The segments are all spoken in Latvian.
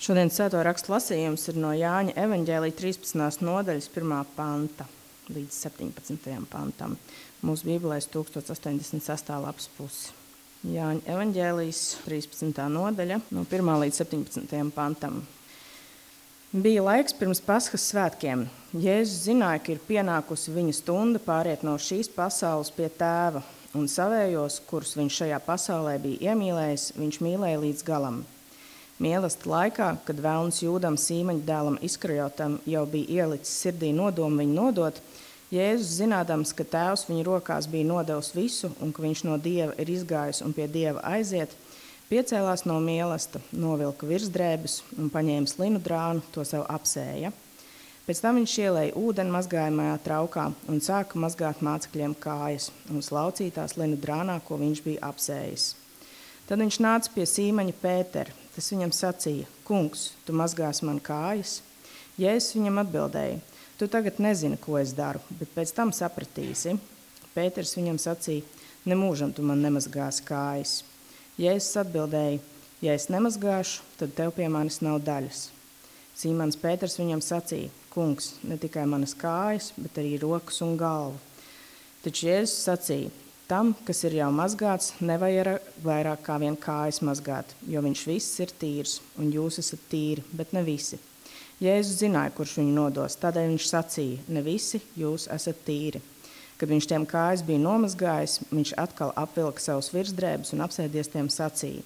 Šodien svēto rakstu lasījums ir no Jāņa evaņģēlija 13. nodaļas 1. panta līdz 17. pantam. Mūsu bībelēs 1086. lapas pusi. Jāņa evaņģēlijas 13. nodaļa no 1. līdz 17. pantam. Bija laiks pirms Paskas svētkiem. Jēzus zināja, ka ir pienākusi viņa stunda pāriet no šīs pasaules pie tēva, un savējos, kurus viņš šajā pasaulē bija iemīlējis, viņš mīlēja līdz galam. Mīlestība laikā, kad velns Jūdam Sīmaņa dēlam Iskarijotam jau bija ielicis sirdī nodomu viņu nodot, Jēzus zinādams, ka tēvs viņa rokās bija nodevis visu un ka viņš no Dieva ir izgājis un pie Dieva aiziet, piecēlās no mīlestības, novilka virsdrēbes un paņēma linu drānu, to sev apsēja. Pēc tam viņš ielēja ūdeni mazgājamajā traukā un sāka mazgāt mācekļiem kājas un slaucītās linu drānā, ko viņš bija apsējis. Tad viņš nāca pie Sīmaņa Pētera. Tas viņam sacīja: Kungs, tu mazgās man kājas? Jēzus viņam atbildēja: Tu tagad nezini, ko es daru, bet pēc tam sapratīsi. Pēters viņam sacīja: Nemūžam tu man nemazgāsi kājas. Jēzus atbildēja: Ja es nemazgāšu, tad tev pie manis nav daļas. Sīmans Pēters viņam sacīja: Kungs, ne tikai manas kājas, bet arī rokas un galvu. Taču Jēzus sacīja: Tam, kas ir jau mazgāts, nevajag vairāk kā vien kājas mazgāt, jo viņš viss ir tīrs, un jūs esat tīri, bet ne visi. Jēzus zināja, kurš viņu nodos, tādēļ viņš sacīja: Ne visi jūs esat tīri. Kad viņš tiem kājas bija nomazgājis, viņš atkal apvilka savus virsdrēbes un apsēdies tiem sacīja: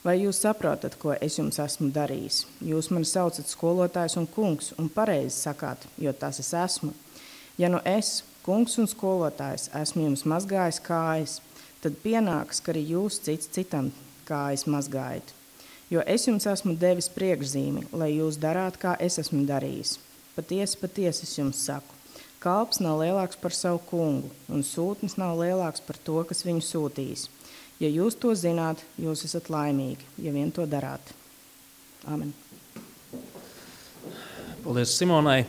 Vai jūs saprotat, ko es jums esmu darījis? Jūs mani saucat skolotājs un kungs, un pareizi sakāt, jo tas es esmu. Ja nu es, kungs un skolotājs, esmu jums mazgājis kājas, tad pienāks, ka arī jūs cits citam kājas mazgājat. Jo es jums esmu devis priekšzīmi, lai jūs darāt, kā es esmu darījis. Patiesi, patiesi es jums saku, kalps nav lielāks par savu kungu, un sūtnis nav lielāks par to, kas viņu sūtījis. Ja jūs to zināt, jūs esat laimīgi, ja vien to darāt. Amen. Paldies Simonai.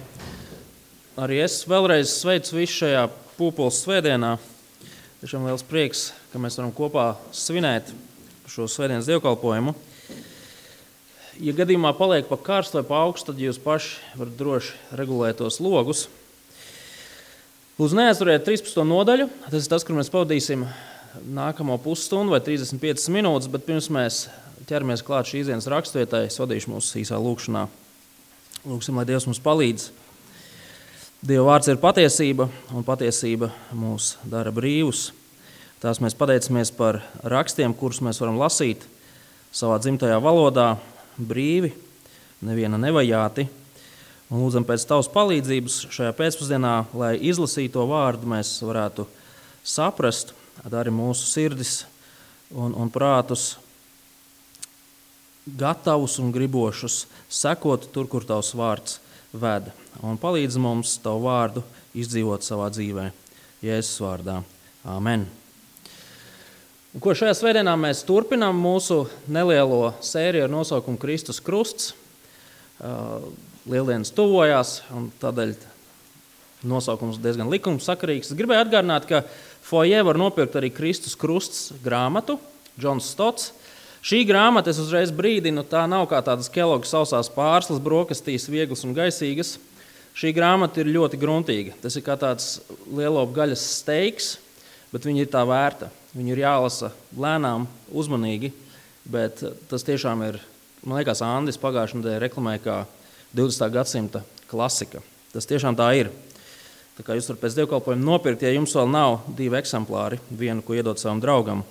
Arī es vēlreiz sveicu visu šajā Pūpoles svētdienā. Tiešām liels prieks, ka mēs varam kopā svinēt šo svētdienas dievkalpojumu. Ja gadījumā paliek pa karstu vai pa augstu, tad jūs paši varat droši regulēt tos logus. Lūdzu, neaizvariet 13. nodaļu. Tas ir tas, kur mēs pavadīsim nākamo pusstundu vai 35 minūtes, bet pirms mēs ķeramies klāt šīs dienas raksturvietai, es vadīšu mūsu īsā lūkšanā. Lūksim, lai Dievs mums palīdz. Dieva vārds ir patiesība, un patiesība mūs dara brīvus. Tās mēs pateicamies par rakstiem, kurus mēs varam lasīt savā dzimtajā valodā, brīvi, neviena nevajāti. Un lūdzam pēc tavas palīdzības šajā pēcpusdienā, lai izlasīto vārdu mēs varētu saprast, dari mūsu sirdis un prātus gatavus un gribošus sekot tur, kur tavs vārds ved. Un palīdz mums tavu vārdu izdzīvot savā dzīvē. Jēzus vārdā. Āmen. Un ko šajā svētdienā mēs turpinām mūsu nelielo sēriju ar nosaukumu Kristus krusts. Lieldienas tuvojās, un tādēļ nosaukums diezgan likumsakarīgs. Es gribēju atgādināt, ka foijē var nopirkt arī Kristus krusts grāmatu, Džons Stots. Šī grāmata, es uzreiz brīdinu, tā nav kā tādas Kellogg's sausās pārslas, brokastīs, vieglas un gaisīgas. Šī grāmata ir ļoti gruntīga. Tas ir kā tāds lielopu gaļas steiks, bet viņa ir tā vērta. Viņu ir jālasa lēnām, uzmanīgi, bet tas tiešām ir, man liekas, Andis pagājušajā nedēļā reklamēja kā 20. gadsimta klasika. Tas tiešām tā ir. Tā kā jūs varat pēc dievkalpojuma nopirkt, ja jums vēl nav 2 eksemplāri, vienu, ko iedot savam draugam.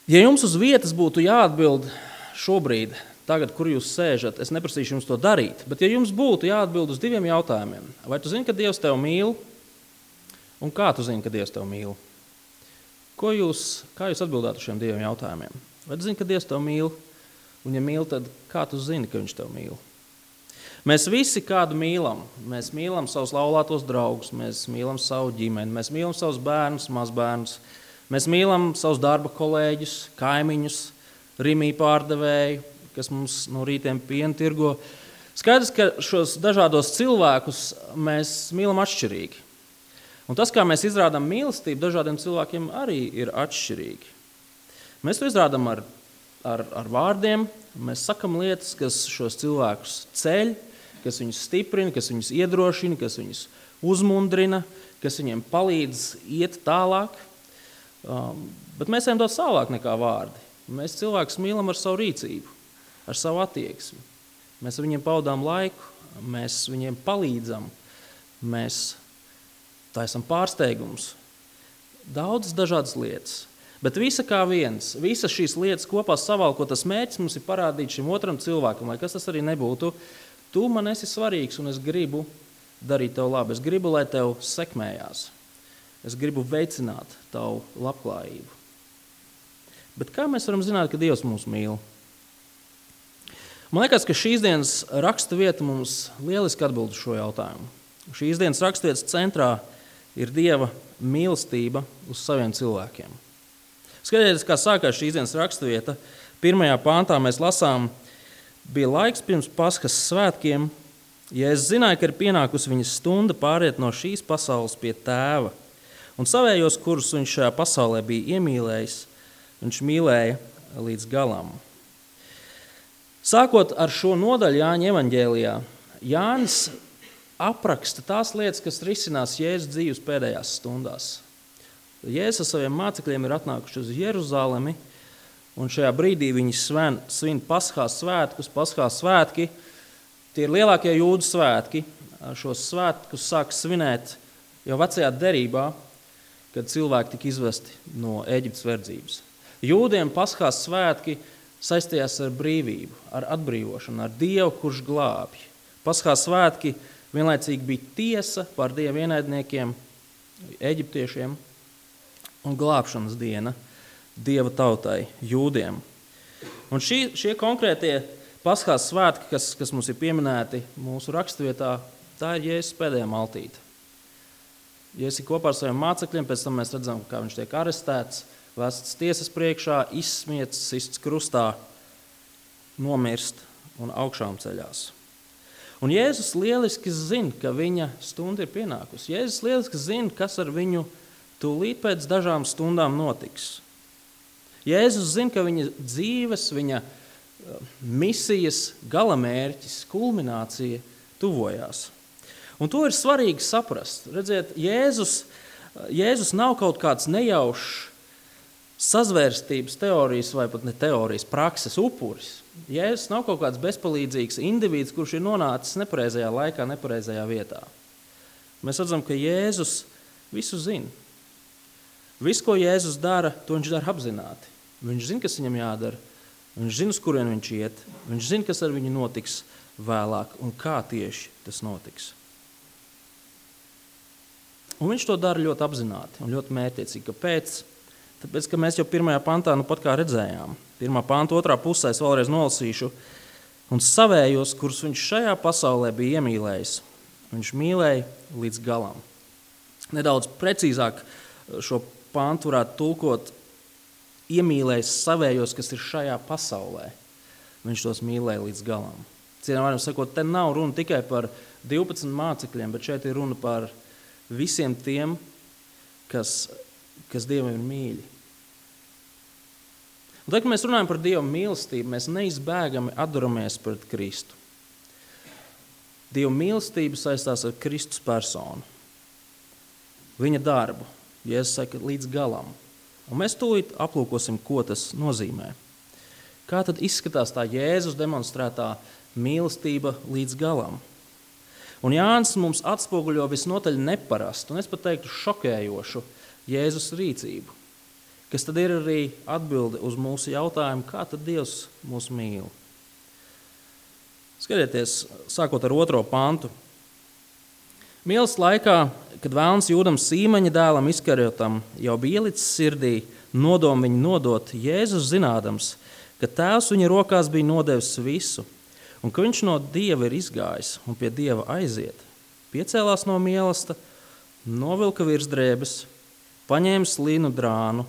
Ja jums uz vietas būtu jāatbild šobrīd, tagad, kur jūs sēžat, es neprasīšu jums to darīt, bet ja jums būtu jāatbild uz 2 jautājumiem, vai tu zini, ka Dievs tev mīl, un kā tu zini, ka Dievs tev mīl? Kā jūs atbildētu uz šiem 2 jautājumiem? Vai tu zini, ka Dievs tev mīl, un ja mīl, tad kā tu zini, ka viņš tev mīl? Mēs visi kādu mīlam. Mēs mīlam savus laulātos draugus, mēs mīlam savu ģimeni, mēs mīlam savus bērnus, mazbērnus. Mēs mīlam savus darba kolēģus, kaimiņus, rimī pārdevēju, kas mums no rītiem pienu tirgo. Skaidrs, ka šos dažādos cilvēkus mēs mīlam atšķirīgi. Un tas, kā mēs izrādām mīlestību, dažādiem cilvēkiem arī ir atšķirīgi. Mēs to izrādām ar ar vārdiem, mēs sakam lietas, kas šos cilvēkus ceļ, kas viņus stiprina, kas viņus iedrošina, kas viņus uzmundrina, kas viņiem palīdz iet tālāk. Bet mēs ejam daudz tālāk nekā vārdi. Mēs cilvēkus mīlam ar savu rīcību, ar savu attieksmi. Mēs viņiem pavadām laiku, mēs viņiem palīdzam, mēs taisam pārsteigumus. Daudzas dažādas lietas. Bet visa kā viens, visas šīs lietas kopā savalkot, tas mērķis mums ir parādīt šim otram cilvēkam, lai kas tas arī nebūtu. Tu man esi svarīgs un es gribu darīt tev labi. Es gribu, lai tev sekmējās. Es gribu veicināt tavu labklājību. Bet kā mēs varam zināt, ka Dievs mūs mīl? Man liekas, ka šīs dienas raksta vieta mums lieliski atbild uz šo jautājumu. Šīs dienas rakstvietas centrā ir Dieva mīlestība uz saviem cilvēkiem. Skatieties, kā sākās šīs dienas rakstvieta. 1. pāntā mēs lasām, bija laiks pirms Paskas svētkiem, ja es zināju, ka ir pienākusi viņa stunda pāriet no šīs pasaules pie tēva, un savējos, kurus viņš šajā pasaulē bija iemīlējis, viņš mīlēja līdz galam. Sākot ar šo nodaļu Jāņa evaņģēlijā, Jānis apraksta tās lietas, kas risinās Jēzus dzīves pēdējās stundās. Jēzus ar saviem mācekļiem ir atnākuši uz Jeruzalemi, un šajā brīdī viņi svin Paskās svētkus. Paskās svētki, tie ir lielākie jūdu svētki. Šos svētkus sāk svinēt jau vecajā derībā, kad cilvēki tika izvesti no Ēģiptes verdzības. Jūdiem Paskās svētki saistījās ar brīvību, ar atbrīvošanu, ar Dievu, kurš glābj. Paskās svētki vienlaicīgi bija tiesa par Dieva ienaidniekiem, eģiptiešiem, un glābšanas diena Dieva tautai, jūdiem. Un šie konkrētie Paskās svētki, kas mums ir pieminēti mūsu rakstvietā, tā ir Jēzus pēdējā maltīte. Jēzus ir kopā ar saviem mācekļiem, pēc tam mēs redzam, kā viņš tiek arestēts, vests tiesas priekšā, izsmiets, sists krustā, nomirst un augšām ceļās. Un Jēzus lieliski zina, ka viņa stunda ir pienākusi. Jēzus lieliski zina, kas ar viņu tūlīt pēc dažām stundām notiks. Jēzus zina, ka viņa dzīves, viņa misijas galamērķis, kulminācija tuvojās. Un to ir svarīgi saprast. Redziet, Jēzus nav kaut kāds nejaušs sazvērstības teorijas vai pat ne teorijas, prakses upuris. Jēzus nav kaut kāds bezpalīdzīgs indivīds, kurš ir nonācis nepareizajā laikā, nepareizajā vietā. Mēs redzam, ka Jēzus visu zina. Visu, ko Jēzus dara, to viņš dara apzināti. Viņš zina, kas viņam jādara. Viņš zina, uz kurien viņš iet. Viņš zina, kas ar viņu notiks vēlāk un kā tieši tas notiks. Un viņš to dara ļoti apzināti un ļoti mērķiecīgi. Kāpēc? Tāpēc, ka mēs jau 1. pantā pat kā redzējām. 1. panta 2. pusē es vēlreiz nolasīšu. Un savējos, kurus viņš šajā pasaulē bija iemīlējis, viņš mīlēja līdz galam. Nedaudz precīzāk šo pantu varētu tulkot iemīlējis savējos, kas ir šajā pasaulē. Viņš tos mīlēja līdz galam. Cienām varam sakot, te nav runa tikai par 12 mācekļiem, bet šeit ir runa par visiem tiem, kas Dievam ir mīļi. Un tad, kad mēs runājam par Dieva mīlestību, mēs neizbēgami atduramies pret Kristu. Dieva mīlestība saistās ar Kristus personu. Viņa darbu, Jēzus saka, līdz galam. Un mēs tūlīt aplūkosim, ko tas nozīmē. Kā tad izskatās tā Jēzus demonstrētā mīlestība līdz galam? Un Jānis mums atspoguļo visnotaļ neparastu, un es pat teiktu šokējošu Jēzus rīcību, kas tad ir arī atbilde uz mūsu jautājumu, kā tad Dievs mūs mīl. Skatieties, sākot ar 2. pantu. Mīlas laikā, kad vēlns Jūdam Sīmeņa dēlam Iskariotam jau bija ielicis sirdī nodomu viņu nodot, Jēzus zinādams, ka tēvs viņa rokās bija nodevis visu, un ka viņš no Dieva ir izgājis un pie Dieva aiziet, piecēlās no mīlesta, novilka virsdrēbes, paņēma linu drānu,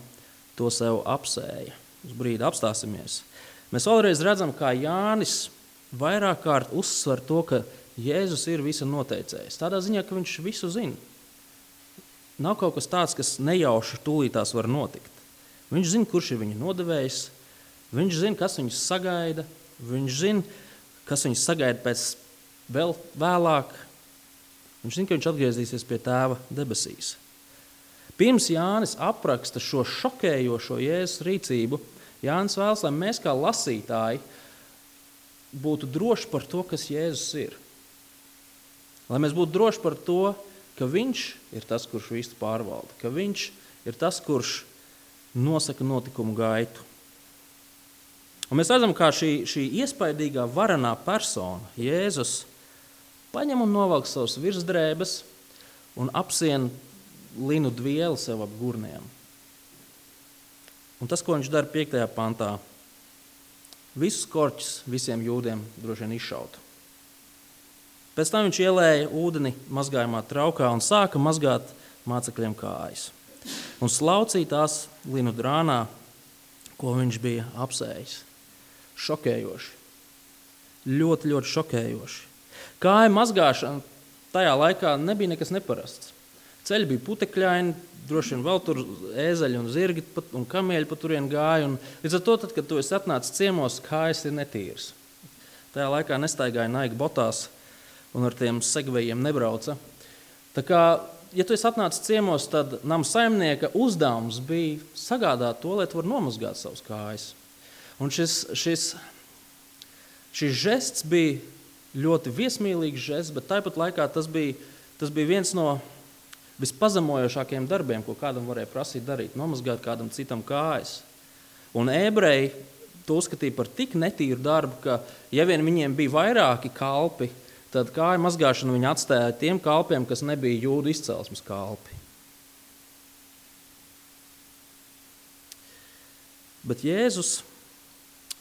to sev apsēja. Uz brīdi apstāsimies. Mēs vēlreiz redzam, kā Jānis vairāk kārt uzsver to, ka Jēzus ir visa noteicējs. Tādā ziņā, ka viņš visu zina. Nav kaut kas tāds, kas nejauši tūlītās var notikt. Viņš zina, kurš ir viņa nodevējs, Viņš zina, kas viņus sagaida. Viņš zina, kas viņus sagaida pēc vēl vēlāk. Viņš zina, ka viņš atgriezīsies pie Tēva debesīs. Pirms Jānis apraksta šo šokējošo Jēzus rīcību, Jānis vēlas, lai mēs kā lasītāji būtu droši par to, kas Jēzus ir. Lai mēs būtu droši par to, ka viņš ir tas, kurš visu pārvalda, ka viņš ir tas, kurš nosaka notikumu gaitu. Un mēs redzam, kā šī iespaidīgā varenā persona, Jēzus, paņem un novelk savus virsdrēbes un apsien linu dvieli sev ap gurniem. Un tas, ko viņš dara 5. pantā, visus korķus visiem jūdiem droši vien izšaut. Pēc tam viņš ielēja ūdeni mazgājumā traukā un sāka mazgāt mācekļiem kājas. Un slaucīja tās linu drānā, ko viņš bija apsējis. Šokējoši. Ļoti, ļoti šokējoši. Kāju mazgāšana tajā laikā nebija nekas neparasts. Ceļi bija putekļaini, droši vien vēl tur ēzeļi un zirgi un kamieļi pa turien gāja. Līdz ar to, tad, kad tu esi atnācis ciemos, kājas ir netīras. Tajā laikā nestaigāja Nike botās un ar tiem segvejiem nebrauca. Tā kā, ja tu esi atnācis ciemos, tad nama saimnieka uzdevums bija sagādāt to, lai tu var nomazgāt savus kājas. Un šis žests bija ļoti viesmīlīgs žests, bet tāpat laikā tas bija viens no vispazemojošākajiem darbiem, ko kādam varēja prasīt darīt, nomazgāt kādam citam kājas. Un ebreji to uzskatīja par tik netīru darbu, ka ja vien viņiem bija vairāki kalpi, tad kāju mazgāšanu viņi atstāja tiem kalpiem, kas nebija jūdu izcelsmes kalpi. Bet Jēzus,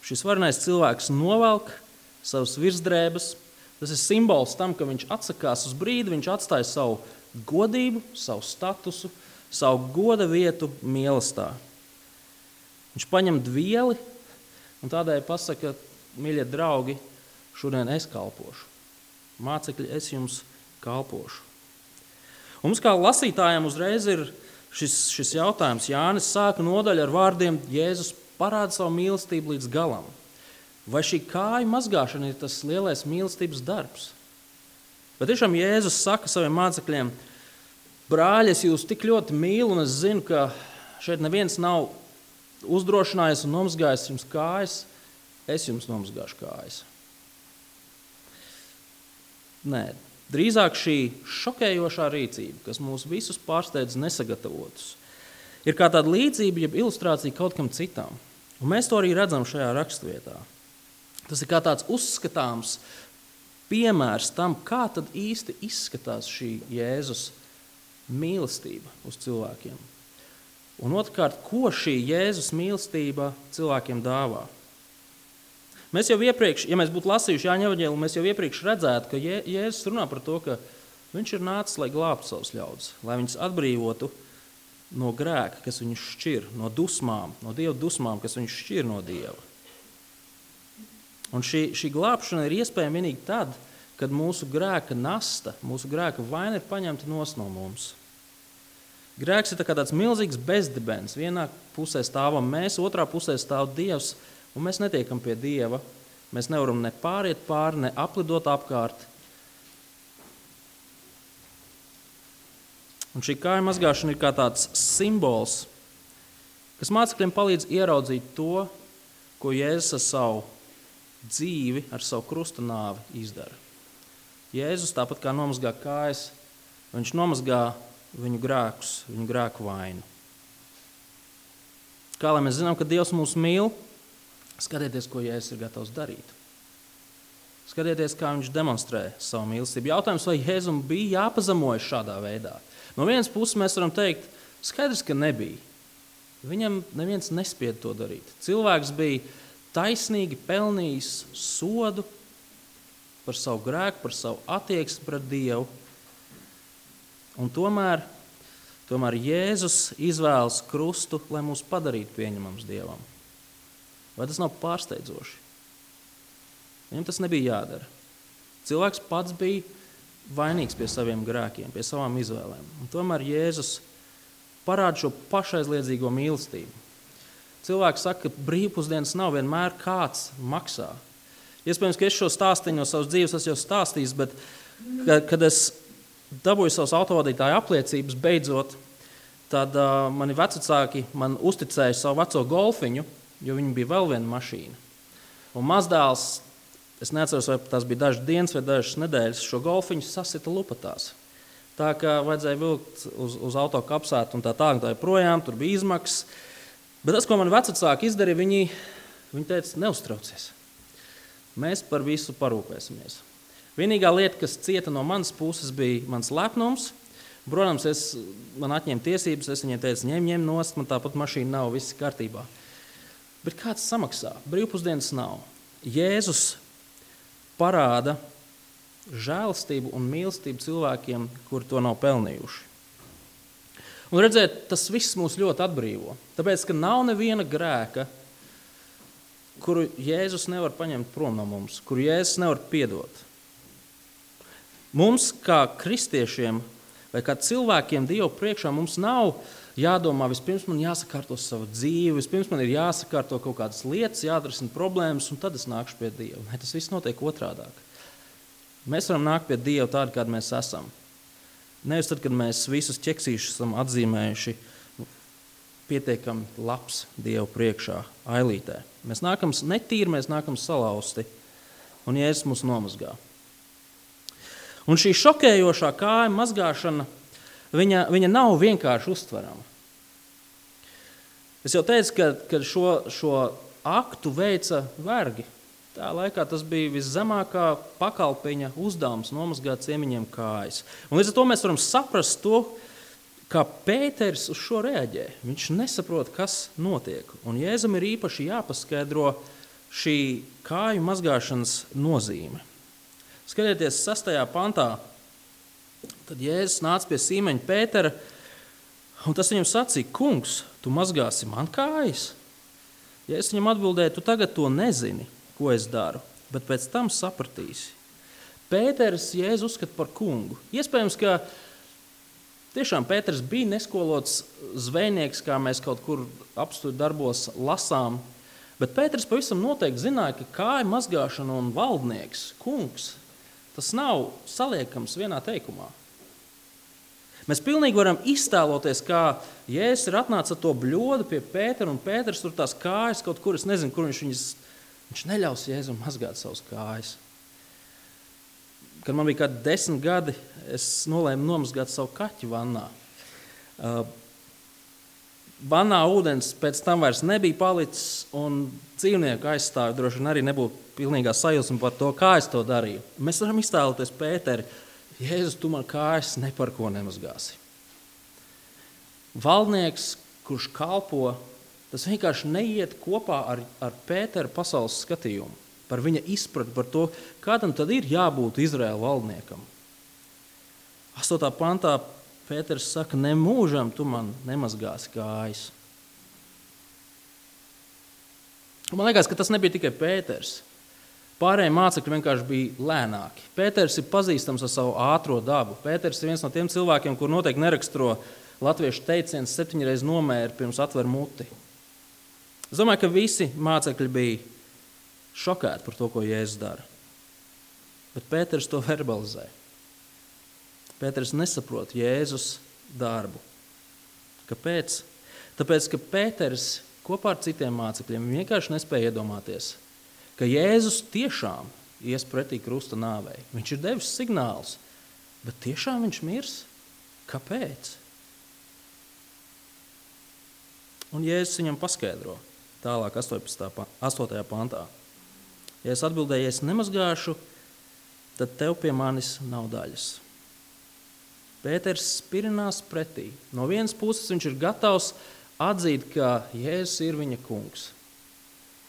šis varenais cilvēks, novelk savas virsdrēbes. Tas ir simbols tam, ka viņš atsakās uz brīdi, viņš atstāja savu godību, savu statusu, savu goda vietu mīlestā. Viņš paņem dvieli un tādēļ pasaka, mīļie draugi, šodien es kalpošu. Mācekļi, es jums kalpošu. Un mums kā lasītājiem uzreiz ir šis jautājums. Jānis sāka nodaļu ar vārdiem Jēzus parāda savu mīlestību līdz galam. Vai šī kāju mazgāšana ir tas lielais mīlestības darbs? Bet tiešām Jēzus saka saviem mācekļiem, brāļi, es jūs tik ļoti mīlu, un es zinu, ka šeit neviens nav uzdrošinājies un nomazgājis jums kājas, es jums nomazgāšu kājas. Nē, drīzāk šī šokējošā rīcība, kas mūs visus pārsteidz nesagatavotus, ir kā tāda līdzība, jeb ilustrācija kaut kam citam. Un mēs to arī redzam šajā rakstvietā. Tas ir kā tāds uzskatāms piemērs tam, kā tad īsti izskatās šī Jēzus mīlestība uz cilvēkiem. Un otrkārt, ko šī Jēzus mīlestība cilvēkiem dāvā. Mēs jau iepriekš, ja mēs būtu lasījuši Jāņa evaņģēliju, mēs jau iepriekš redzētu, ka Jēzus runā par to, ka viņš ir nācis, lai glābtu savus ļaudis, lai viņus atbrīvotu no grēka, kas viņus šķir, no dusmām, no Dieva dusmām, kas viņus šķir no Dieva. Un šī glābšana ir iespējama vienīgi tad, kad mūsu grēka nasta, mūsu grēka vaina ir paņemta nos no mums. Grēks ir tāds milzīgs bezdibens. Vienā pusē stāvam mēs, otrā pusē stāv Dievs, un mēs netiekam pie Dieva. Mēs nevaram ne pāriet pāri, ne aplidot apkārt. Un šī kāju mazgāšana ir kā tāds simbols, kas mācekļiem palīdz ieraudzīt to, ko Jēzus ar savu dzīvi, ar savu krusta nāvi izdara. Jēzus tāpat kā nomazgā kājas, viņš nomazgā viņu grēkus, viņu grēku vainu. Kā lai mēs zinām, ka Dievs mūs mīl, skatieties, ko Jēzus ir gatavs darīt. Skatieties, kā viņš demonstrē savu mīlestību. Jautājums, vai Jēzum bija jāpazemojas šādā veidā? No vienas puses mēs varam teikt, skaidrs, ka nebija. Viņam neviens nespied to darīt. Cilvēks bija taisnīgi pelnījis sodu par savu grēku, par savu attieksmi pret Dievu. Un tomēr Jēzus izvēlas krustu, lai mūs padarītu pieņemams Dievam. Vai tas nav pārsteidzoši? Viņam tas nebija jādara. Cilvēks pats bija vainīgs pie saviem grēkiem, pie savām izvēlēm. Un tomēr Jēzus parāda šo pašaizliedzīgo mīlestību. Cilvēki saka, ka brīvpusdienas nav vienmēr kāds maksā. Iespējams, ka es šo stāstīju no savas dzīves, es jau stāstījis, bet kad es dabūju savas autovadītāja apliecības beidzot, tad mani vecvecāki man uzticēja savu veco golfiņu, jo viņi bija vēl viena mašīna. Un mazdēls, es neatceros, vai tas bija dažas dienas vai dažas nedēļas, šo golfiņu sasita lupatās. Tā kā vajadzēja vilkt uz auto kapsētu un tā projām, tur bija izmaksas. Bet tas, ko man vecvecāki izdarīja, viņi teica, neuztraucies. Mēs par visu parūpēsimies. Vienīgā lieta, kas cieta no manas puses, bija mans lepnums. Protams, man atņēma tiesības, es viņiem teicu, ņem nost, man tāpat mašīna nav, viss kārtībā. Bet kāds samaksā? Brīvpusdienas nav. Jēzus parāda žēlastību un mīlestību cilvēkiem, kuri to nav pelnījuši. Un redzēt, tas viss mūs ļoti atbrīvo. Tāpēc, ka nav neviena grēka, kuru Jēzus nevar paņemt prom no mums, kuru Jēzus nevar piedot. Mums, kā kristiešiem vai kā cilvēkiem Dievu priekšā, mums nav jādomā, vispirms man jāsakārto savu dzīvi, vispirms man ir jāsakārto kaut kādas lietas, jāatrisina problēmas, un tad es nākšu pie Dieva. Ne, tas viss notiek otrādāk. Mēs varam nākt pie Dieva tādi, kādi mēs esam. Nevis tad, kad mēs visus ķeksīšus esam atzīmējuši pietiekami labs Dievu priekšā, ailītē. Mēs nākam netīri, mēs nākam salauzti, un Jēzus mūs nomazgā. Un šī šokējošā kāja mazgāšana, viņa nav vienkārši uztverama. Es jau teicu, ka šo aktu veica vergi. Tā laikā tas bija viszemākā pakalpiņa uzdevums nomazgāt ciemiņiem kājas. Un līdz ar to mēs varam saprast to, kā Pēters uz šo reaģē. Viņš nesaprot, kas notiek. Un Jēzum ir īpaši jāpaskaidro šī kāju mazgāšanas nozīme. Skatieties 6. pantā, tad Jēzus nāca pie Sīmeņa Pētera, un tas viņam sacīja, kungs, tu mazgāsi man kājas? Jēzus viņam atbildēja, tu tagad to nezini, ko es daru, bet pēc tam sapratīsi. Pēters Jēzu uzskata par kungu. Iespējams, ka tiešām Pēters bija neskolots zvejnieks, kā mēs kaut kur apstuļu darbos lasām, bet Pēters pavisam noteikti zināja, ka kāja mazgāšana un valdnieks, kungs, tas nav saliekams vienā teikumā. Mēs pilnīgi varam iztēloties, kā Jēzus ir atnācis ar to bļodu pie Pētera, un Pēters tur tās kājas kaut kur, es nezinu, kur viņš neļaus Jēzum mazgāt savas kājas. Kad man bija kādi 10 gadi, es nolēmu nomazgāt savu kaķi vannā. Vannā ūdens pēc tam vairs nebija palicis, un dzīvnieku aizstāvi droši vien arī nebūtu pilnīgā sajūsma par to, kā es to darīju. Mēs varam iztēloties Pēteri, Jēzus, tu man kājas ne par ko nemazgāsi. Valdnieks, kurš kalpo, tas vienkārši neiet kopā ar Pētera pasaules skatījumu, par viņa izpratni par to, kādam tad ir jābūt Izraēla valdniekam. 8. pantā Pēters saka, nemūžam tu man nemazgāsi kājas. Man liekas, ka tas nebija tikai Pēters. Pārējie mācekļi vienkārši bija lēnāki. Pēters ir pazīstams ar savu ātro dabu. Pēters ir viens no tiem cilvēkiem, kur noteikti neraksturo latviešu teiciens 7 reizes nomēri pirms atver muti. Es domāju, ka visi mācekļi bija šokēti par to, ko Jēzus dara. Bet Pēters to verbalizē. Pēters nesaprot Jēzus darbu. Kāpēc? Tāpēc, ka Pēters kopā ar citiem mācekļiem vienkārši nespēja iedomāties, ka Jēzus tiešām ies pretī krusta nāvei. Viņš ir devis signālus, bet tiešām viņš mirs? Kāpēc? Un Jēzus viņam paskaidro tālāk 8. pantā. Ja es atbildēju, ja es nemazgāšu, tad tev pie manis nav daļas. Pēters spirinās pretī. No vienas puses viņš ir gatavs atzīt, ka Jēzus ir viņa kungs.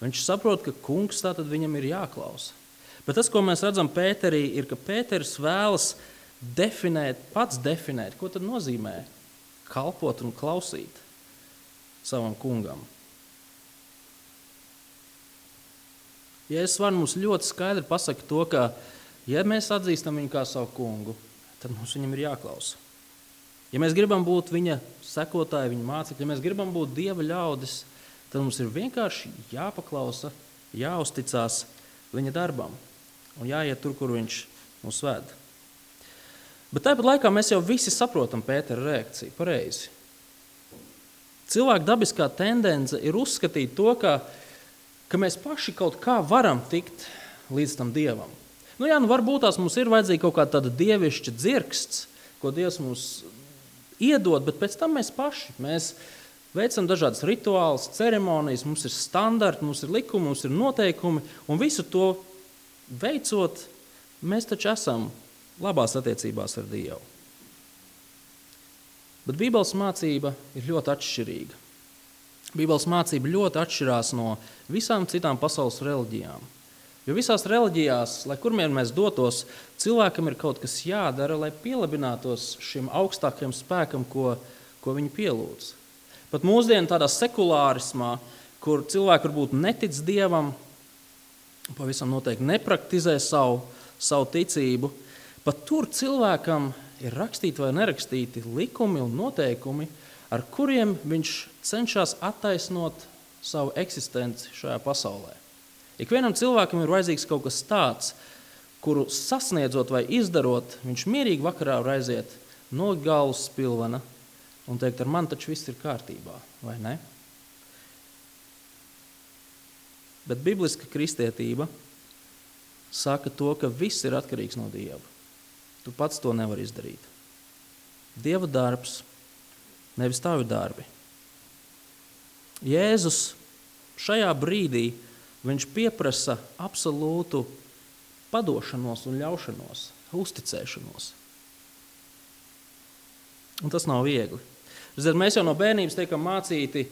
Viņš saprot, ka kungs tātad viņam ir jāklausa. Bet tas, ko mēs redzam Pēterī, ir, ka Pēters vēlas pats definēt, ko tad nozīmē kalpot un klausīt savam kungam. Jēzus var mums ļoti skaidri pasaka to, ka, ja mēs atzīstam viņu kā savu kungu, tad mums viņam ir jāklausa. Ja mēs gribam būt viņa sekotāji, viņa mācekļi, ja mēs gribam būt Dieva ļaudis, tad mums ir vienkārši jāpaklausa, jāuzticās viņa darbam un jāiet tur, kur viņš mūs ved. Bet tāpat laikā mēs jau visi saprotam Pētera reakciju pareizi. Cilvēka dabiskā tendence ir uzskatīt to, ka mēs paši kaut kā varam tikt līdz tam Dievam. Varbūt tās mums ir vajadzīga kaut kāda tāda dievišķa dzirksts, ko Dievs mums iedod, bet pēc tam mēs paši. Mēs veicam dažādas rituālus, ceremonijas, mums ir standarti, mums ir likumi, mums ir noteikumi, un visu to veicot, mēs taču esam labās attiecībās ar Dievu. Bet Bībeles mācība ir ļoti atšķirīga. Bībeles mācība ļoti atšķirās no visām citām pasaules reliģijām. Jo visās reliģijās, lai kurmien mēs dotos, cilvēkam ir kaut kas jādara, lai pielabinātos šim augstākajam spēkam, ko viņi pielūdz. Pat mūsdienu tādā sekulārismā, kur cilvēki varbūt netic Dievam, pavisam noteikti nepraktizē savu ticību, pat tur cilvēkam ir rakstīti vai nerakstīti likumi un noteikumi, ar kuriem viņš cenšas attaisnot savu eksistenci šajā pasaulē. Ikvienam cilvēkam ir vajadzīgs kaut kas tāds, kuru sasniedzot vai izdarot, viņš mierīgi vakarā var aiziet no galvas spilvena un teikt, ar mani taču viss ir kārtībā, vai ne? Bet bibliska kristietība saka to, ka viss ir atkarīgs no Dieva. Tu pats to nevari izdarīt. Dieva darbs, nevis tavi darbi. Jēzus šajā brīdī viņš pieprasa absolūtu padošanos un ļaušanos, uzticēšanos. Un tas nav viegli. Mēs jau no bērnības tiekam mācīti,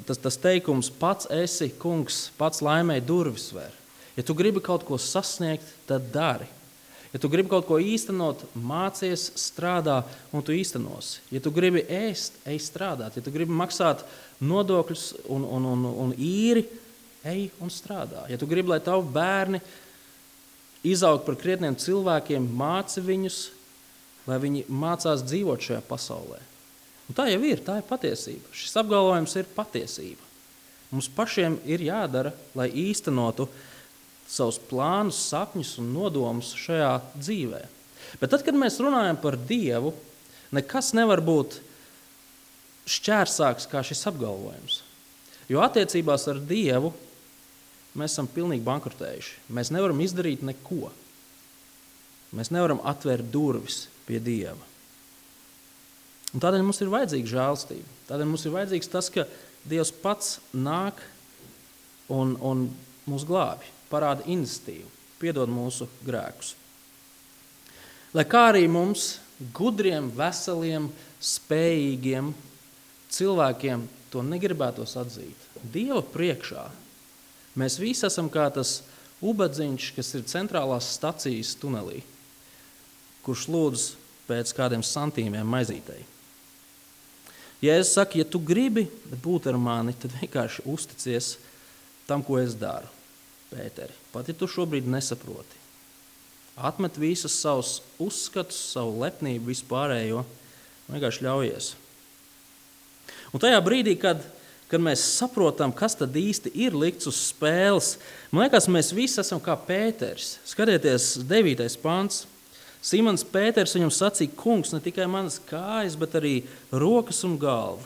tas teikums, pats esi kungs, pats laimēji durvis ver. Ja tu gribi kaut ko sasniegt, tad dari. Ja tu gribi kaut ko īstenot, mācies, strādā un tu īstenosi. Ja tu gribi ēst, ej strādāt. Ja tu gribi maksāt nodokļus un īri, ej un strādā. Ja tu gribi, lai tavi bērni izaug par krietniem cilvēkiem, māci viņus, lai viņi mācās dzīvot šajā pasaulē. Un tā jau ir, tā ir patiesība. Šis apgalvojums ir patiesība. Mums pašiem ir jādara, lai īstenotu savus plānus, sapņus un nodomus šajā dzīvē. Bet tad, kad mēs runājam par Dievu, nekas nevar būt šķērsāks kā šis apgalvojums. Jo attiecībās ar Dievu mēs esam pilnīgi bankrotējuši. Mēs nevaram izdarīt neko. Mēs nevaram atvērt durvis pie Dieva. Un tādēļ mums ir vajadzīga žēlstība. Tādēļ mums ir vajadzīgs tas, ka Dievs pats nāk un mūs glābi, parāda iniciatīvu, piedod mūsu grēkus. Lai kā arī mums, gudriem, veseliem, spējīgiem cilvēkiem, to negribētos atzīt. Dieva priekšā mēs visi esam kā tas ubadziņš, kas ir centrālās stacijas tunelī, kurš lūdz pēc kādiem santīmiem maizītei. Jēzus saka, ja tu gribi būt ar mani, tad vienkārši uzticies tam, ko es daru. Pēteri, pat ja tu šobrīd nesaproti. Atmet visus savus uzskatus, savu lepnību, vispārējo, vienkārši ļaujies. Un tajā brīdī, kad mēs saprotam, kas tad īsti ir likts uz spēles, man liekas, mēs visi esam kā Pēteris. Skatieties, 9. pants. Simons Pēters viņam sacīja, kungs, ne tikai manas kājas, bet arī rokas un galvu.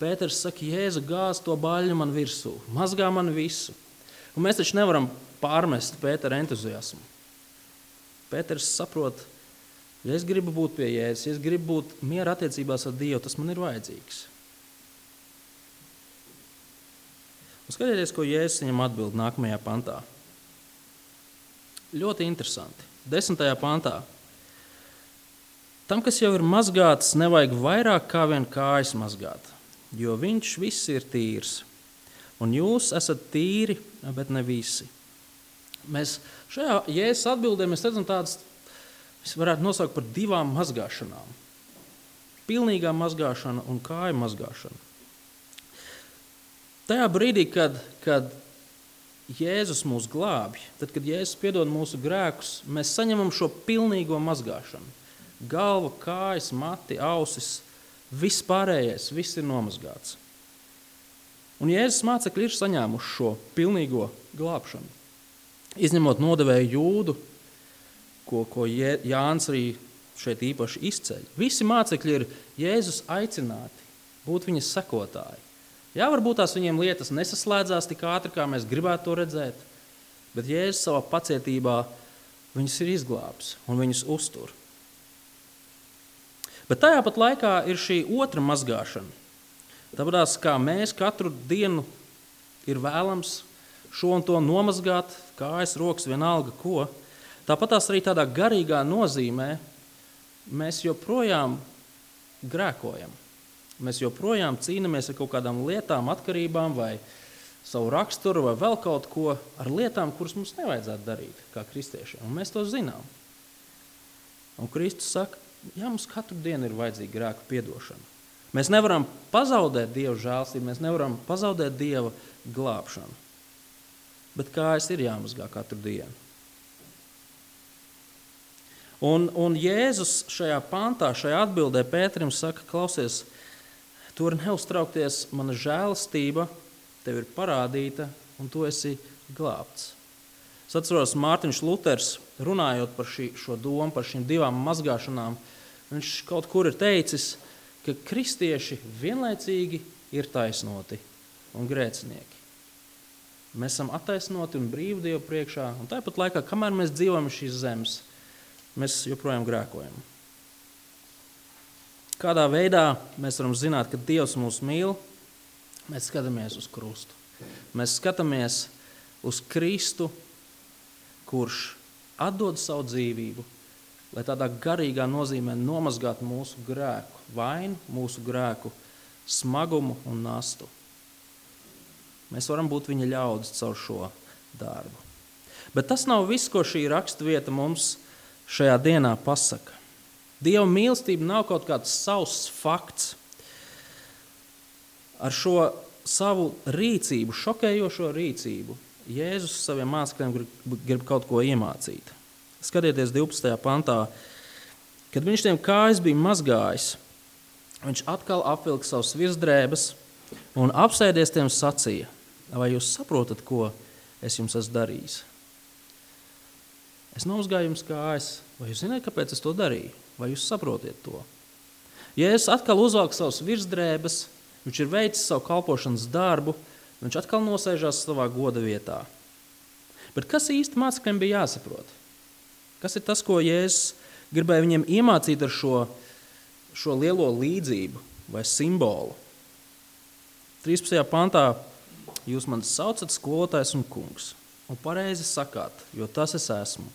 Pēters saka, Jēzu, gāz to baļņu man virsū, mazgā man visu. Un mēs taču nevaram pārmest Pētera entuziasmu. Pēters saprot, ja es gribu būt pie Jēzus, ja es gribu būt miera attiecībās ar Dievu, tas man ir vajadzīgs. Un skatieties, ko Jēzus viņam atbild nākamajā pantā. Ļoti interesanti. 10. pantā. Tam, kas jau ir mazgāts, nevajag vairāk kā vien kājas mazgāt, jo viņš viss ir tīrs. Un jūs esat tīri, bet ne visi. Mēs šajā Jēzus atbildē mēs redzam tādas, mēs varētu nosaukt par 2 mazgāšanām. Pilnīgā mazgāšana un kāju mazgāšana. Tajā brīdī, kad Jēzus mūs glābj, tad, kad Jēzus piedod mūsu grēkus, mēs saņemam šo pilnīgo mazgāšanu. Galva, kājas, mati, ausis, viss pārējais, viss ir nomazgāts. Un Jēzus mācekļi ir saņēmuši šo pilnīgo glābšanu. Izņemot nodevēju Jūdu, ko Jānis arī šeit īpaši izceļ. Visi mācekļi ir Jēzus aicināti būt viņa sekotāji. Jā, varbūt tās viņiem lietas nesaslēdzās tik ātri, kā mēs gribētu to redzēt, bet Jēzus savā pacietībā viņus ir izglābs un viņus uztur. Bet tajā pat laikā ir šī otra mazgāšana. Tāpēc, kā mēs katru dienu ir vēlams šo un to nomazgāt, kājas, rokas, vienalga ko, tāpat tās arī tādā garīgā nozīmē mēs joprojām grēkojam. Mēs joprojām cīnāmies ar kaut kādām lietām, atkarībām vai savu raksturu vai vēl kaut ko ar lietām, kuras mums nevajadzētu darīt kā kristiešiem. Un mēs to zinām. Un Kristus saka, jā, mums katru dienu ir vajadzīga grēku piedošana. Mēs nevaram pazaudēt Dieva žēlstību, mēs nevaram pazaudēt Dieva glābšanu. Bet kājas ir jāmazgā katru dienu. Un Jēzus šajā pantā, šajā atbildē Pēterim saka, klausies, tu vari neuztraukties, mana žēlastība tev ir parādīta un tu esi glābts. Es atceros, Mārtiņš Luters, runājot par šo domu, par šīm divām mazgāšanām, viņš kaut kur ir teicis, ka kristieši vienlaicīgi ir taisnoti un grēcinieki. Mēs esam attaisnoti un brīvi Dievu priekšā, un tāpat laikā, kamēr mēs dzīvojam šīs zemes, mēs joprojām grēkojam. Kādā veidā mēs varam zināt, ka Dievs mūs mīl? Mēs skatāmies uz krustu. Mēs skatāmies uz Kristu, kurš atdod savu dzīvību, lai tādā garīgā nozīmē nomazgātu mūsu grēku vainu, mūsu grēku smagumu un nastu. Mēs varam būt viņa ļaudis caur šo darbu. Bet tas nav viss, ko šī raksturvieta mums šajā dienā pasaka. Dieva mīlestība nav kaut kāds sauss fakts. Ar šo savu rīcību, šokējošo rīcību, Jēzus saviem mācekļiem grib kaut ko iemācīt. Skatieties 12. pantā, kad viņš tiem kājas bija mazgājis, viņš atkal apvilka savus virsdrēbes un apsēdies tiem sacīja, vai jūs saprotat, ko es jums esmu darījis? Es nomazgāju jums kājas, vai jūs zināt, kāpēc es to darīju? Vai jūs saprotiet to? Jēzus atkal uzvelk savus virsdrēbes, viņš ir veicis savu kalpošanas darbu, viņš atkal nosēžās savā goda vietā. Bet kas īsti mācekļiem bija jāsaprot? Kas ir tas, ko Jēzus gribēja viņiem iemācīt ar šo lielo līdzību vai simbolu? 13. pantā jūs mani saucat skolotājs un kungs, un pareizi sakāt, jo tas es esmu.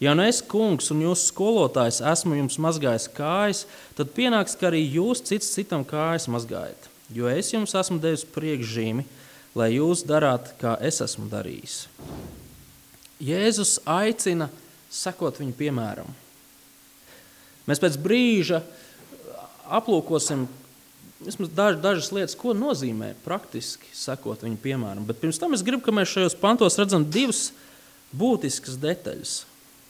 Ja nu es, kungs, un jūs skolotājs, esmu jums mazgājis kājas, tad pienāks, ka arī jūs cits citam kājas mazgājat, jo es jums esmu devis priekšzīmi, lai jūs darāt, kā es esmu darījis. Jēzus aicina sekot viņu piemēram. Mēs pēc brīža aplūkosim vismaz dažas lietas, ko nozīmē praktiski sekot viņu piemēram. Bet pirms tam es gribu, ka mēs šajos pantos redzam divas būtiskas detaļas.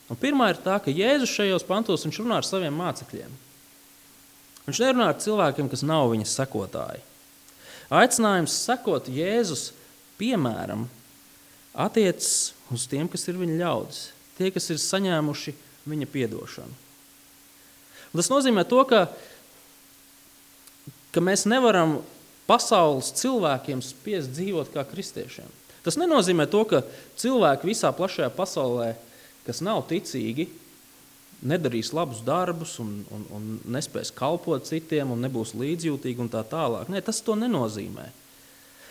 Un pirmā ir tā, ka Jēzus šajos pantos viņš runā ar saviem mācekļiem. Viņš nerunā ar cilvēkiem, kas nav viņa sekotāji. Aicinājums sekot Jēzus piemēram attiecas uz tiem, kas ir viņa ļaudis, tie, kas ir saņēmuši viņa piedošanu. Un tas nozīmē to, ka mēs nevaram pasaules cilvēkiem spiest dzīvot kā kristiešiem. Tas nenozīmē to, ka cilvēki visā plašajā pasaulē, kas nav ticīgi, nedarīs labus darbus un nespēs kalpot citiem un nebūs līdzjūtīgi un tā tālāk. Nē, tas to nenozīmē.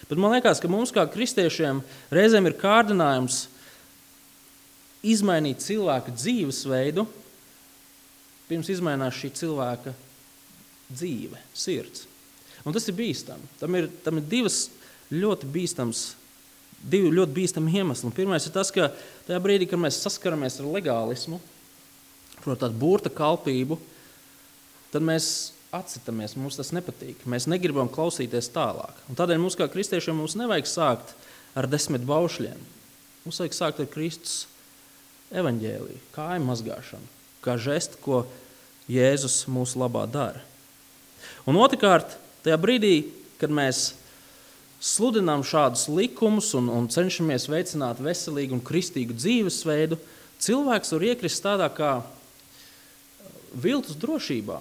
Bet man liekas, ka mums kā kristiešiem reizēm ir kārdinājums izmainīt cilvēka dzīvesveidu, pirms izmainās šī cilvēka dzīve, sirds. Un tas ir bīstami. Tam ir divas ļoti bīstami iemesli. Pirmais ir tas, ka tajā brīdī, kad mēs saskaramies ar legālismu, proti tādu burta kalpību, tad mēs atsitamies, mums tas nepatīk. Mēs negribam klausīties tālāk. Un tādēļ mums kā kristiešiem mums nevajag sākt ar 10 baušļiem. Mums vajag sākt ar Kristus evaņģēliju, kāju mazgāšanu, kā žestu, ko Jēzus mūsu labā dara. Un otrkārt, tajā brīdī, kad mēs sludinām šādus likumus un cenšamies veicināt veselīgu un kristīgu dzīvesveidu, cilvēks var iekrist tādā kā viltus drošībā.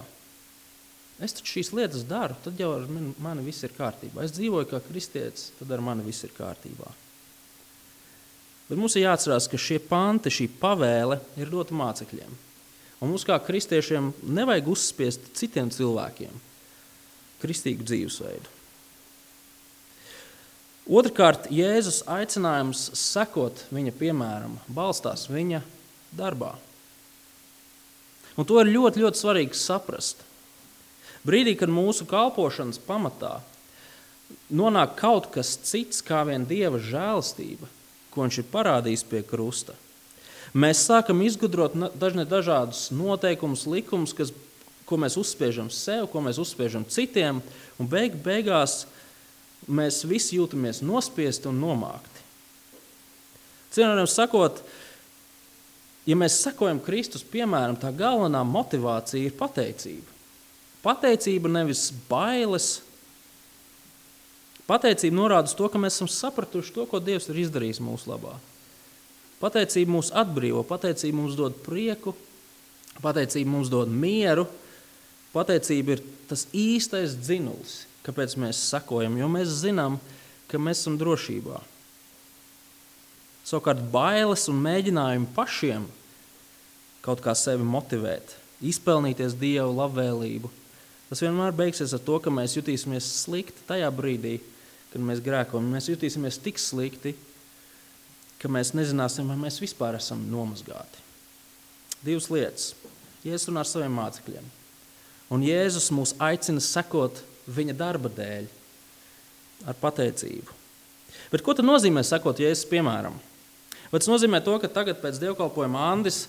Es taču šīs lietas daru, tad jau ar mani viss ir kārtībā. Es dzīvoju kā kristietis, tad ar mani viss ir kārtībā. Bet mums ir jāatcerās, ka šie panti, šī pavēle ir dota mācekļiem. Un mums kā kristiešiem nevajag uzspiest citiem cilvēkiem kristīgu dzīvesveidu. Otrkārt, Jēzus aicinājums sekot viņa piemēram balstās viņa darbā. Un to ir ļoti, ļoti svarīgi saprast. Brīdī, kad mūsu kalpošanas pamatā nonāk kaut kas cits kā vien Dieva žēlastība, ko viņš ir parādījis pie krusta, mēs sākam izgudrot dažādus noteikumus, likumus, ko mēs uzspiežam sev, ko mēs uzspiežam citiem, un beigās mēs visi jūtamies nospiesti un nomākti. Cienījamiem sakot, ja mēs sekojam Kristus piemēram, tā galvenā motivācija ir pateicība. Pateicība nevis bailes. Pateicība norāda uz to, ka mēs esam sapratuši to, ko Dievs ir izdarījis mūsu labā. Pateicība mūs atbrīvo, pateicība mums dod prieku, pateicība mums dod mieru, pateicība ir tas īstais dzinulis, kāpēc mēs sekojam, jo mēs zinām, ka mēs esam drošībā. Savukārt bailes un mēģinājumi pašiem kaut kā sevi motivēt, izpelnīties Dieva labvēlību, tas vienmēr beigsies ar to, ka mēs jutīsimies slikti tajā brīdī, kad mēs grēkojam. Mēs jutīsimies tik slikti, ka mēs nezināsim, vai mēs vispār esam nomazgāti. Divas lietas. Jēzus runā ar saviem mācekļiem. Un Jēzus mūs aicina sekot viņa darba dēļ ar pateicību. Bet ko tad nozīmē sekot Jēzus piemēram? Vai tas nozīmē to, ka tagad pēc dievkalpojuma Andis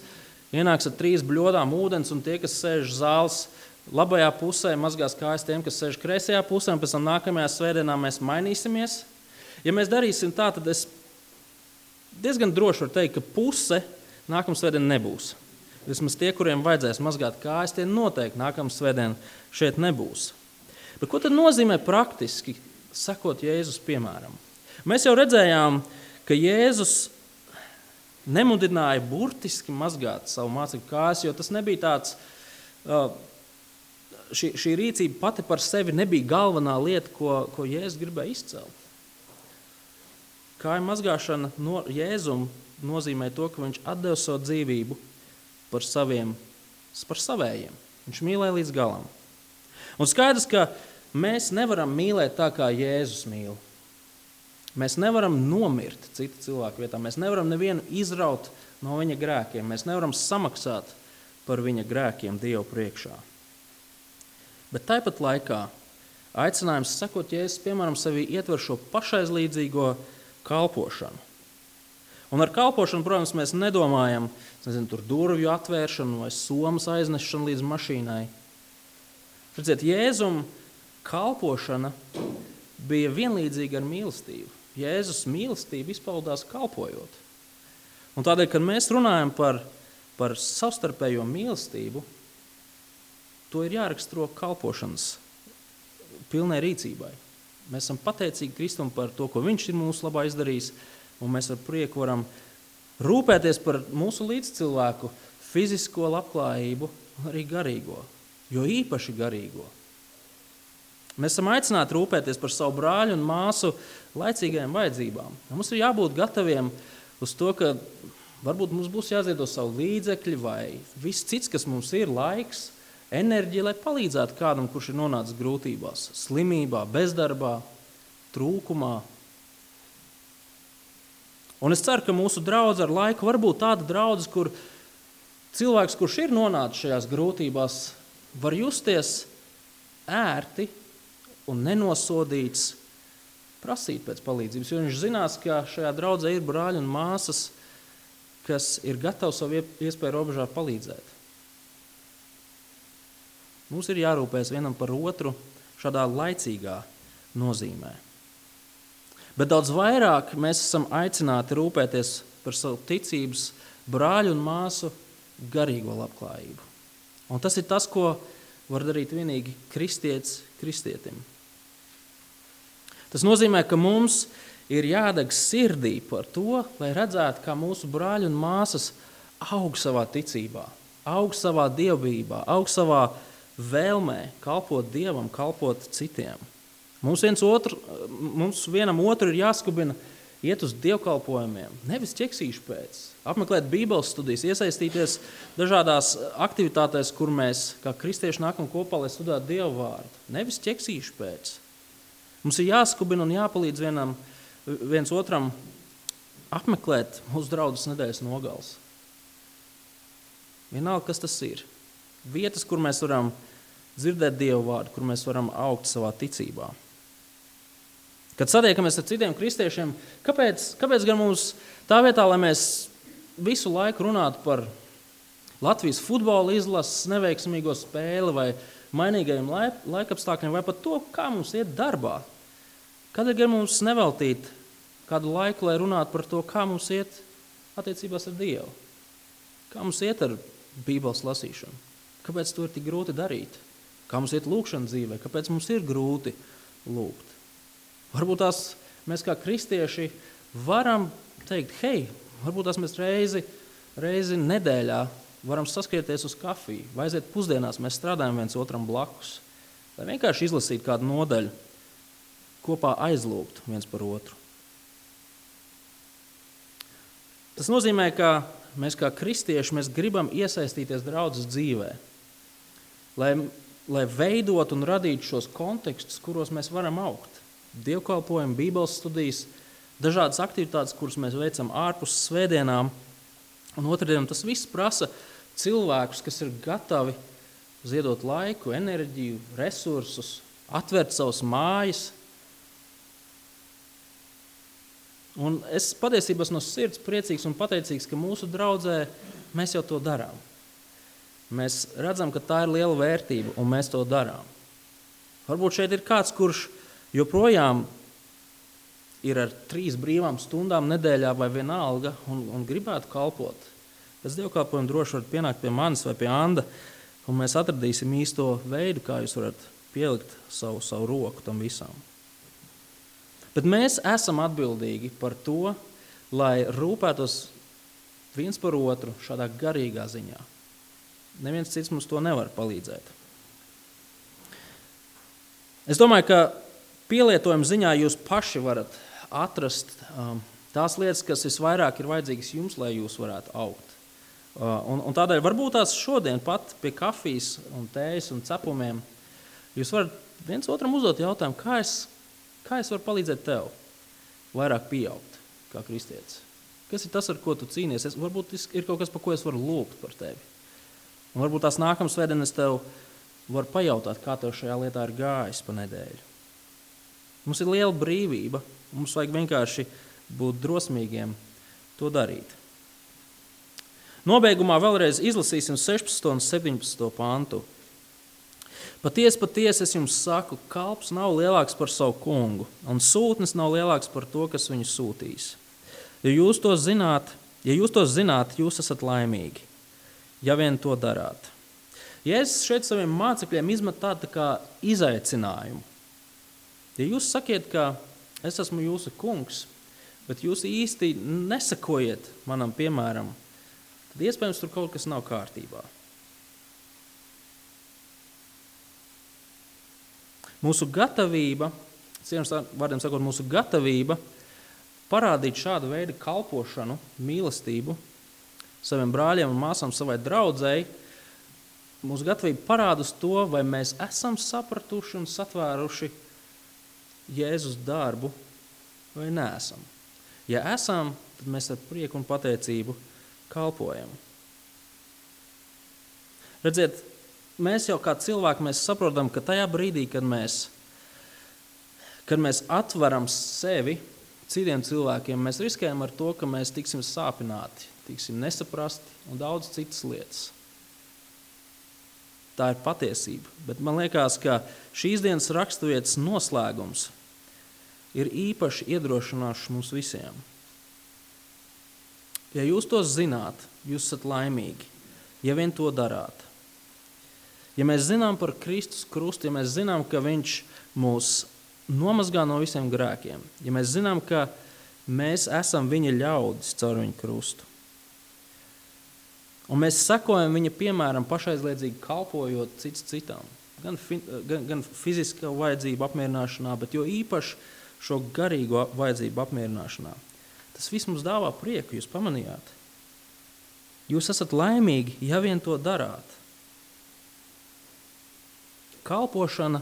ienāks ar 3 bļodām ūdens un tie, kas sēž zāles labajā pusē, mazgās kājas tiem, kas sēž kreisajā pusē, un pēc tam nākamajā svētdienā mēs mainīsimies? Ja mēs darīsim tā, tad es diezgan droši varu teikt, ka puse nākamā svētdiena nebūs. Vismaz tie, kuriem vajadzēs mazgāt kājas, tie noteikti nākamā svētdiena šeit nebūs. Bet ko tad nozīmē praktiski sekot Jēzus piemēram? Mēs jau redzējām, ka Jēzus nemudināja burtiski mazgāt savu mācekļu kājas, jo tas nebija tāds, šī rīcība pati par sevi nebija galvenā lieta, ko Jēzus gribēja izcelt. Kāju mazgāšana Jēzum nozīmē to, ka viņš atdeva savu dzīvību par savējiem. Viņš mīlēja līdz galam. Un skaidrs, ka mēs nevaram mīlēt tā, kā Jēzus mīl. Mēs nevaram nomirt citu cilvēku vietā. Mēs nevaram nevienu izraut no viņa grēkiem. Mēs nevaram samaksāt par viņa grēkiem Dievu priekšā. Bet tāpat laikā aicinājums sekot Jēzus, piemēram, sevī ietver šo pašaizlīdzīgo kalpošanu. Un ar kalpošanu, protams, mēs nedomājam, tur durvju atvēršanu vai somas aiznešanu līdz mašīnai. Redziet, Jēzum kalpošana bija vienlīdzīga ar mīlestību. Jēzus mīlestība izpaudās kalpojot. Un tādēļ, kad mēs runājam par savstarpējo mīlestību, to ir jāraksturo kalpošanas pilnai rīcībai. Mēs esam pateicīgi Kristum par to, ko viņš ir mūsu labā izdarījis, un mēs ar prieku varam rūpēties par mūsu līdzcilvēku fizisko labklājību un arī garīgo, jo īpaši garīgo. Mēs esam aicināti rūpēties par savu brāļu un māsu laicīgajām vajadzībām. Mums ir jābūt gataviem uz to, ka varbūt mums būs jāziedo savu līdzekļi vai viss cits, kas mums ir, laiks, enerģija, lai palīdzētu kādam, kurš ir nonācis grūtībās, slimībā, bezdarbā, trūkumā. Un es ceru, ka mūsu draudze ar laiku var būt tāda draudze, kur cilvēks, kurš ir nonācis šajās grūtībās, var justies ērti un nenosodīts prasīt pēc palīdzības, jo viņš zinās, ka šajā draudzē ir brāļi un māsas, kas ir gatavi savu iespēju robežā palīdzēt. Mums ir jārūpēs vienam par otru šādā laicīgā nozīmē. Bet daudz vairāk mēs esam aicināti rūpēties par savu ticības brāļu un māsu garīgo labklājību. Un tas ir tas, ko var darīt vienīgi kristietis kristietim. Tas nozīmē, ka mums ir jādeg sirdī par to, lai redzētu, kā mūsu brāļi un māsas aug savā ticībā, aug savā dievbijībā, aug savā vēlmē kalpot Dievam, kalpot citiem. Mums vienam otru ir jāskubina iet uz dievkalpojumiem, nevis ķeksīšu pēc, apmeklēt bībeles studijas, iesaistīties dažādās aktivitātēs, kur mēs kā kristieši nākam kopā, lai studētu Dievu vārdu, nevis ķeksīšu pēc. Mums ir jāskubina un jāpalīdz viens otram apmeklēt mūsu draudzes nedēļas nogales. Vienalga, kas tas ir. Vietas, kur mēs varam dzirdēt Dievu vārdu, kur mēs varam augt savā ticībā. Kad satiekamies ar citiem kristiešiem, kāpēc gan mums tā vietā, lai mēs visu laiku runātu par Latvijas futbola izlases neveiksmīgo spēli vai mainīgajiem laikapstākļiem vai pat to, kā mums iet darbā, kādēļ gan mums neveltīt kādu laiku, lai runātu par to, kā mums iet attiecībās ar Dievu, kā mums iet ar Bībeles lasīšanu, kāpēc to ir tik grūti darīt, kā mums iet lūkšana dzīvē, kāpēc mums ir grūti lūgt. Varbūt mēs kā kristieši varam teikt, hei, varbūt mēs reizi nedēļā varam saskrieties uz kafiju, vai aiziet pusdienās, mēs strādājam viens otram blakus, lai vienkārši izlasītu kādu nodaļu, kopā aizlūgt viens par otru. Tas nozīmē, ka mēs kā kristieši mēs gribam iesaistīties draudzes dzīvē, lai veidotu un radītu šos kontekstus, kuros mēs varam augt. Dievkalpojumi, bībeles studijas, dažādas aktivitātes, kuras mēs veicam ārpus svētdienām. Un otrdienam tas viss prasa cilvēkus, kas ir gatavi ziedot laiku, enerģiju, resursus, atvērt savas mājas. Un es patiesībā esmu no sirds priecīgs un pateicīgs, ka mūsu draudzē mēs jau to darām. Mēs redzam, ka tā ir liela vērtība, un mēs to darām. Varbūt šeit ir kāds, kurš joprojām ir ar 3 brīvām stundām nedēļā vai vienalga un gribētu kalpot. Pēc dievkalpojuma droši varat pienākt pie manis vai pie Anda, un mēs atradīsim īsto veidu, kā jūs varat pielikt savu roku tam visam. Bet mēs esam atbildīgi par to, lai rūpētos viens par otru šādā garīgā ziņā. Neviens cits mums to nevar palīdzēt. Es domāju, ka pielietojuma ziņā jūs paši varat atrast tās lietas, kas visvairāk ir vajadzīgas jums, lai jūs varētu augt. Un tādēļ varbūt tās šodien pat pie kafijas un tējas un cepumiem jūs varat viens otram uzdot jautājumu, kā es varu palīdzēt tev vairāk pieaugt kā kristietis. Kas ir tas, ar ko tu cīnies? Varbūt ir kaut kas, par ko es varu lūgt par tevi. Un varbūt tās nākamās svētdienas tev var pajautāt, kā tev šajā lietā ir gājis pa nedēļu. Mums ir liela brīvība, mums vajag vienkārši būt drosmīgiem to darīt. Nobeigumā vēlreiz izlasīsim 16. un 17. pantu. Patiesi es jums saku, kalps nav lielāks par savu kungu, un sūtnis nav lielāks par to, kas viņu sūtīs. Ja jūs to zināt, jūs esat laimīgi, ja vien to darāt. Jēzus šeit saviem mācekļiem izmet tādu kā izaicinājumu. Ja jūs sakiet, ka es esmu jūsu kungs, bet jūs īsti nesakojiet manam piemēram, tad iespējams tur kaut kas nav kārtībā. Mūsu gatavība, vārdiem sakot, mūsu gatavība parādīt šādu veidu kalpošanu, mīlestību saviem brāļiem un māsām, savai draudzei, mūsu gatavība parāda uz to, vai mēs esam sapratuši un satvēruši Jēzus darbu vai neesam. Ja esam, tad mēs ar prieku un pateicību kalpojam. Redziet, mēs jau kā cilvēki mēs saprotam, ka tajā brīdī, kad mēs atveram sevi citiem cilvēkiem, mēs riskējam ar to, ka mēs tiksim sāpināti, tiksim nesaprasti un daudz citas lietas. Tā ir patiesība, bet man liekas, ka šīs dienas raksturvietas noslēgums ir īpaši iedrošinošs mums visiem. Ja jūs to zināt, jūs esat laimīgi, ja vien to darāt. Ja mēs zinām par Kristus krustu, ja mēs zinām, ka viņš mūs nomazgā no visiem grēkiem, ja mēs zinām, ka mēs esam viņa ļaudis caur viņa krustu, un mēs sekojam viņa piemēram pašaizliedzīgi kalpojot cits citam, gan fiziskā vajadzību apmierināšanā, bet jo īpaši šo garīgo vajadzību apmierināšanā. Tas viss mums dāvā prieku, jūs pamanījāt. Jūs esat laimīgi, ja vien to darāt. Kalpošana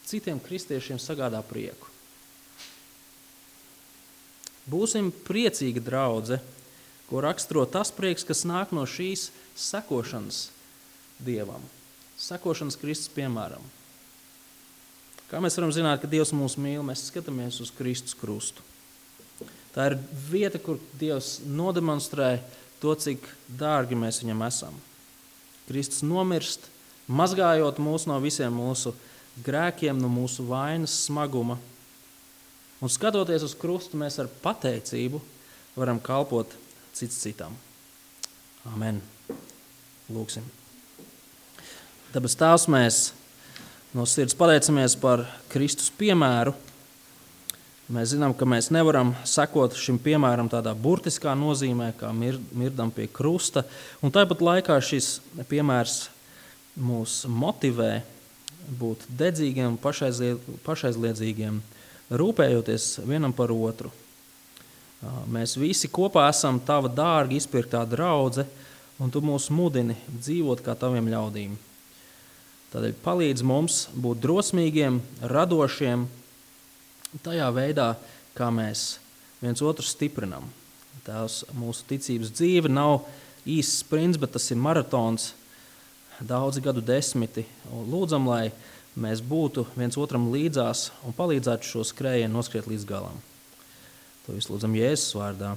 citiem kristiešiem sagādā prieku. Būsim priecīga draudze, ko raksturo tas prieks, kas nāk no šīs sekošanas Dievam, sekošanas Kristus piemēram. Kā mēs varam zināt, ka Dievs mūs mīl, mēs skatāmies uz Kristus krustu. Tā ir vieta, kur Dievs nodemonstrē to, cik dārgi mēs viņam esam. Kristus nomirst, mazgājot mūs no visiem mūsu grēkiem, no mūsu vainas smaguma. Un skatoties uz krustu, mēs ar pateicību varam kalpot cits citam. Amen. Lūksim. Tāpēc Tēvs, mēs no sirds pateicamies par Kristus piemēru. Mēs zinām, ka mēs nevaram sekot šim piemēram tādā burtiskā nozīmē, kā mirdam pie krusta. Un tāpat laikā šis piemērs mūs motivē būt dedzīgiem, pašaizliedzīgiem, rūpējoties vienam par otru. Mēs visi kopā esam tava dārgi izpirktā draudze, un tu mūs mudini dzīvot kā taviem ļaudīm. Tādēļ palīdz mums būt drosmīgiem, radošiem, tajā veidā, kā mēs viens otru stiprinam. Tās mūsu ticības dzīve nav īsts sprints, bet tas ir maratons, daudzi gadu desmiti. Un lūdzam, lai mēs būtu viens otram līdzās un palīdzētu šo skrējienu noskriet līdz galam. To visu lūdzam Jēzus vārdā.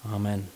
Amen.